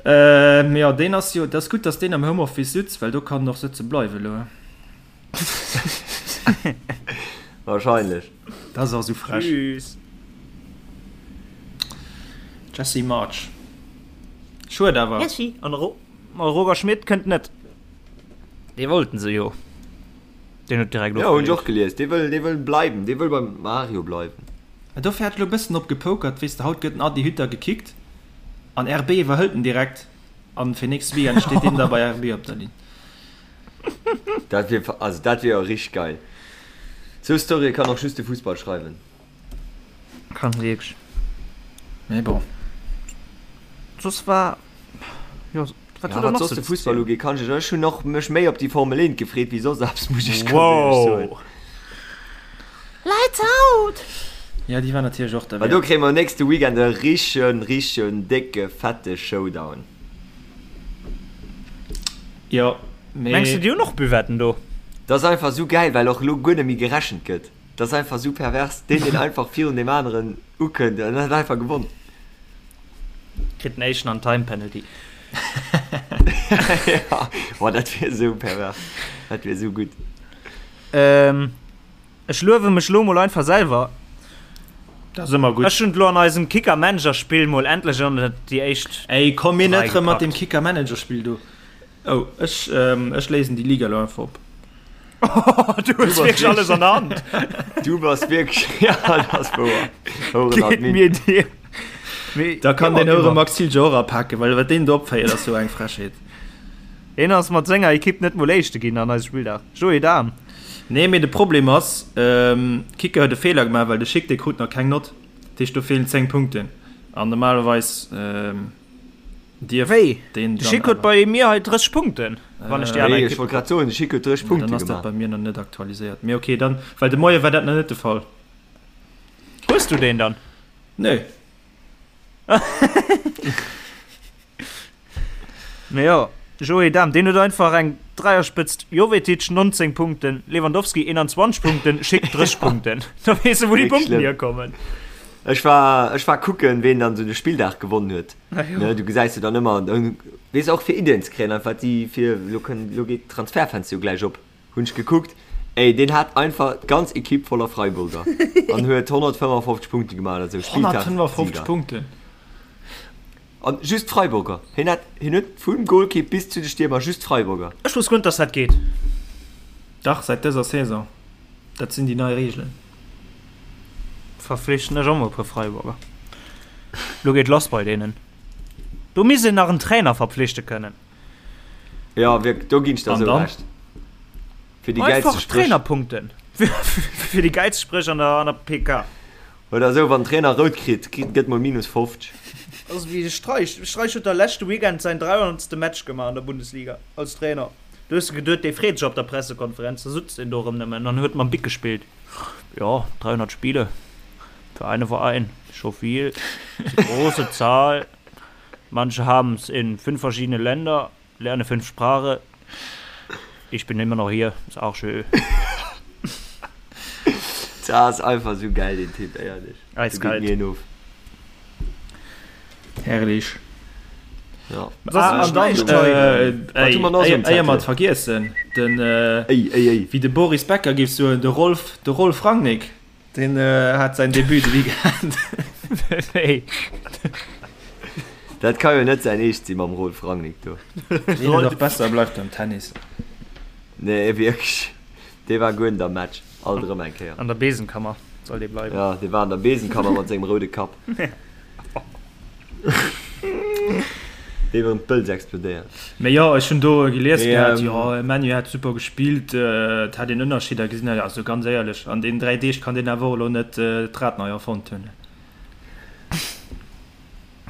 Speaker 5: Ähm, jo, deen ass jo, dat ass gutt, dass deen am Homeoffice sutz, well do kann en och sëtze bleiwe lo.
Speaker 3: Wahrscheinlech.
Speaker 5: Dat ass och sou frech.
Speaker 4: Tschüss.
Speaker 5: Jesse Marsch. Schued awer.
Speaker 4: Merci. An de Roger Schmit kënnt net. Dee wollten se jo. Deen huet direkt
Speaker 3: Jo, hunn ech och gelies. Dee wëll, dee wëll bleiwen. Dee wëll beim Mario bleiwen.
Speaker 5: Mä dofir hat elo e bëssen drop gepokert, weess de, haut gëtt den Adi Hütter gekickt an RB iwwerhëlt en direkt an fir nächste Weekend steet deen da bei RB op der Linn.
Speaker 3: Dat wier, also dat wier jo richteg geil. Sou Storye kann och just de Fussball schreiwen.
Speaker 4: Kann wierklech.
Speaker 5: Mee bon.
Speaker 4: Soss war, jo,
Speaker 3: wat huet der nach sou ze zielen? Wat soss de Fussball ugeet, kann ech, ech hunn och mech méi op déi Formel 1 gefreet wéi soss eppes, muss ech ganz éierlech soen.
Speaker 4: Wow! Lights out!
Speaker 5: Ja, déi war natierlech och
Speaker 3: Well do kréie mer nächste Weekend e richtegen, richtegen décke, fette Showdown.
Speaker 5: Jo, mee.
Speaker 4: Mengs de, déi hunn och Buvetten do?
Speaker 3: Dat ass einfach sou gäil, well och elo guer net méi gerechent gëtt. Dat ass einfach sou pervers. Deen, deen einfach virun deem aneren ukënnt, deen huet einfach gewonn.
Speaker 4: Kritt den éischten an Time Penalty.
Speaker 3: Ja, boah, dat wier sou pervers. Dat wier sou gutt.
Speaker 4: Ähm, ech luewe mech lo mol einfach selwer.
Speaker 5: Dat ass ëmmer gutt.
Speaker 4: Ech hunn et lo an eisem Kicker-Manager-Spill mol endlech an déi éischt
Speaker 5: Ey, komm mir
Speaker 4: 3
Speaker 5: net rëm mat deem
Speaker 4: gepackt.
Speaker 5: Kicker-Manager-Spill do. Oh, ech, ähm, ech léisen déi Liga lo einfach op.
Speaker 4: Du hues wierklech alles an der Hand.
Speaker 3: Du bass wierklech, ja, dat ass wouer. Houeren Admin.
Speaker 4: Mir dir. Mee
Speaker 5: Da kann
Speaker 4: immer,
Speaker 5: den Houre
Speaker 4: immer.
Speaker 5: Max Zilger och apaken, well wat deen do opféiert ass jo eng Frechheet.
Speaker 4: Hien ass mat senger Ekipp net mol Éischte ginn an eisem Spilldag. Joé Dahm.
Speaker 5: Nee, mee de Problem ass, Kicker huet e Feeler gemaach, well de Schick dee krut nach keng Nott. Dat heescht do feelen 10 Punkten an normalerweis dierf
Speaker 4: Wéi?
Speaker 5: deen
Speaker 4: De
Speaker 5: dann
Speaker 4: Schick huet
Speaker 5: awer.
Speaker 4: bei mir hei 30 Punkten, wann ech déi aner
Speaker 3: Ech
Speaker 4: Ekipp.
Speaker 3: wollt grad soen, de Schick huet 30
Speaker 5: Dann
Speaker 3: Punkte
Speaker 5: ass dat
Speaker 3: gemaach.
Speaker 5: bei mir nach net aktualiséiert. Mee okay, dann, well de Moie war dat nach net de Fall.
Speaker 4: Hues du deen dann?
Speaker 5: Nee.
Speaker 4: Mee jo, Joé Dahm, deen huet einfach eng Dräierspëtzt, Jovetic 19 Punkten, Lewandowski 21 Punkten, Schick 30 Punkten. Da weess de wou déi Punkten hierkommen.
Speaker 3: Ech war, ech war kucken, ween dann esou de Spilldag gewonnen huet. Ne, du gesäis jo dann ëmmer, weess och fir Iddien ze kréien, einfach déi fir, elo kënn, elo geet d'Transferfenster jo gläich op, hunn ech gekuckt, ey, deen hat einfach d'ganz Equipe voller Freiburger an huet 155 Punkte gemaach oder esou,
Speaker 5: 155
Speaker 3: Spilldagsieger.
Speaker 5: Punkten?
Speaker 3: An just Freiburger. Hien hat, hien huet vum Golkipp bis zu de Stiermer just Freiburger.
Speaker 4: Ech wosst guer net dass dat geet.
Speaker 5: Dach, säit dëser Saison. Dat sinn déi nei Reegelen.
Speaker 4: Verflichten ech och mol e puer Freiburger. Lo geet lass bei deenen. Do misst een nach en Trainer verpflichte kënnen.
Speaker 3: Jo, wierk, do ginn ech der
Speaker 5: An
Speaker 3: esou
Speaker 5: dann?
Speaker 3: Recht. Fir déi gäilste
Speaker 4: Einfach
Speaker 3: Spréch.
Speaker 4: Trainerpunkten. Fir déi gäilste Spréch an der, an der PK.
Speaker 3: Oder esou, wann den Trainer rout kritt, kritt, gëtt mol minus 50.
Speaker 4: Also wéi de Streich. De Streich huet da leschte Weekend säin 300. Match gemaach an der Bundesliga als Trainer. Du hues geduet, dee freet sech op der Pressekonferenz, da sutzt deen do erëm nëmmen an huet mam Bic gespillt. Jo, 300 Spiele für einen Verein, scho vill, ist eine große Zahl. Manche haben's in fünf verschiedene Länder, lerne fünf Sprache. Ich bin immer noch hier, ist auch schön.
Speaker 3: Dat ass einfach sou geil deen Typ, éierlech.
Speaker 4: Eiskalt.
Speaker 3: Do geet mir een of.
Speaker 5: Herrlich.
Speaker 3: Ja.
Speaker 5: Ah, an dann, äh, ey, éier mer et vergiessen, den, äh,
Speaker 3: Ey, ey, ey.
Speaker 5: wéi de Boris Becker géif soen, de Rolf, de Rolf Rangnick. Deen hat säin Debut de Weekend.
Speaker 4: Wéi?
Speaker 3: Dat ka jo net säin Eescht si mam Rolf Rangnick do.
Speaker 5: Deen huet och besser bleift beim Tennis.
Speaker 3: Nee wierklech, dee war guer net am Match, alt erëm eng Kéier.
Speaker 4: An der Besenkammer soll dee bleiwen.
Speaker 3: Jo, dee war an der Besenkammer mat sengem roude Kapp. Dee wërem d'Bëlz explodéiert.
Speaker 5: Mee jo, ech hunn do gelies
Speaker 3: Mee,
Speaker 5: gehat,
Speaker 3: ähm,
Speaker 5: jo, ManU hätt super gespillt, et hätt een Ënnerscheeder gesinn. Also ganz éierlech, an deenen 3 Deeg kann deen awer och elo net d'Rad nei erfonnt hunn.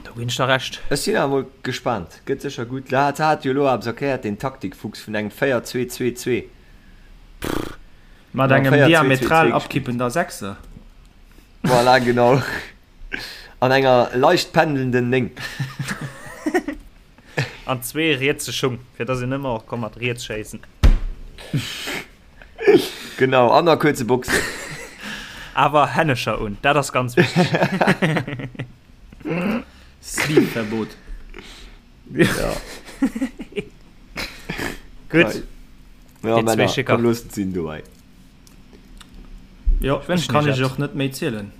Speaker 4: Do ginn ech der Recht.
Speaker 3: Ech sinn awer mol gespaant, gëtt sécher gutt. Hat hat jo elo eppes erkläert, deen Taktikfuchs vun engem 4-2-2-2.
Speaker 5: Mat
Speaker 3: Genau,
Speaker 5: engem
Speaker 3: 4-2-2-2
Speaker 5: diametral
Speaker 3: gespillt.
Speaker 5: abkippender Sechser.
Speaker 3: Voilà, genau. An enger leicht pendelnden 9.
Speaker 4: An zwee rietse Schung, fir dass een ëmmer och ka mat riets schéissen.
Speaker 3: Genau, an a kuerze Boxen.
Speaker 4: Awer Hännescher un, dat ass ganz wichteg.
Speaker 5: Sleeve-Verbot.
Speaker 3: Ja.
Speaker 4: Gutt.
Speaker 3: Ja,
Speaker 4: Déi zwee
Speaker 3: Männer,
Speaker 4: Schicker.
Speaker 3: komm looss et sinn dobäi.
Speaker 5: Jo,
Speaker 4: wënschen
Speaker 5: ech kann
Speaker 4: iech
Speaker 5: iech
Speaker 4: eppes.
Speaker 5: och net méi zielen.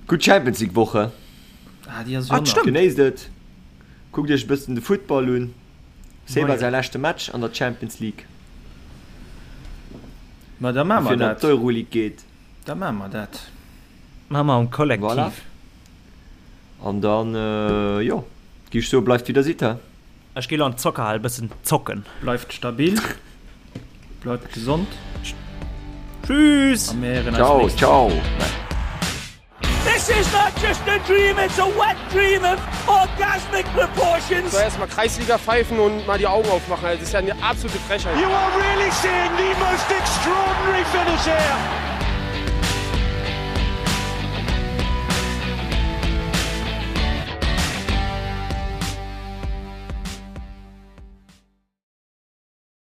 Speaker 3: Gutt Champions League Woche.
Speaker 5: Ah, déi ass
Speaker 4: Ah,
Speaker 5: jo nach.
Speaker 4: stimmt.
Speaker 3: Genéisst et. Kuckt iech e bëssen de Futtball un. Seba
Speaker 5: Moien.
Speaker 3: säi leschte Match an der Champions League.
Speaker 5: Ma da maache mer
Speaker 3: Bevir en an
Speaker 5: dat.
Speaker 3: d'Euroleague geet.
Speaker 5: Da maache mer dat.
Speaker 4: Maache mer am Kollektiv.
Speaker 3: Voilà. An dann, jo, gi ech soe bleift wéi der sidd, he?
Speaker 4: Ech gi lo an d'Zockerhal bëssen zocken.
Speaker 5: Bleift stabil, bleift gesond.
Speaker 4: Tschüss!
Speaker 5: A mir héieren eis
Speaker 3: Ciao,
Speaker 5: nächst
Speaker 3: ciao.
Speaker 5: Woch.
Speaker 1: This is not just a dream, it's a wet dream of orgasmic proportions.
Speaker 2: So erstmal Kreisliga pfeifen und mal die Augen aufmachen. Also, das ist ja eine absolute Frechheit.
Speaker 1: You are really seeing the most extraordinary finish here.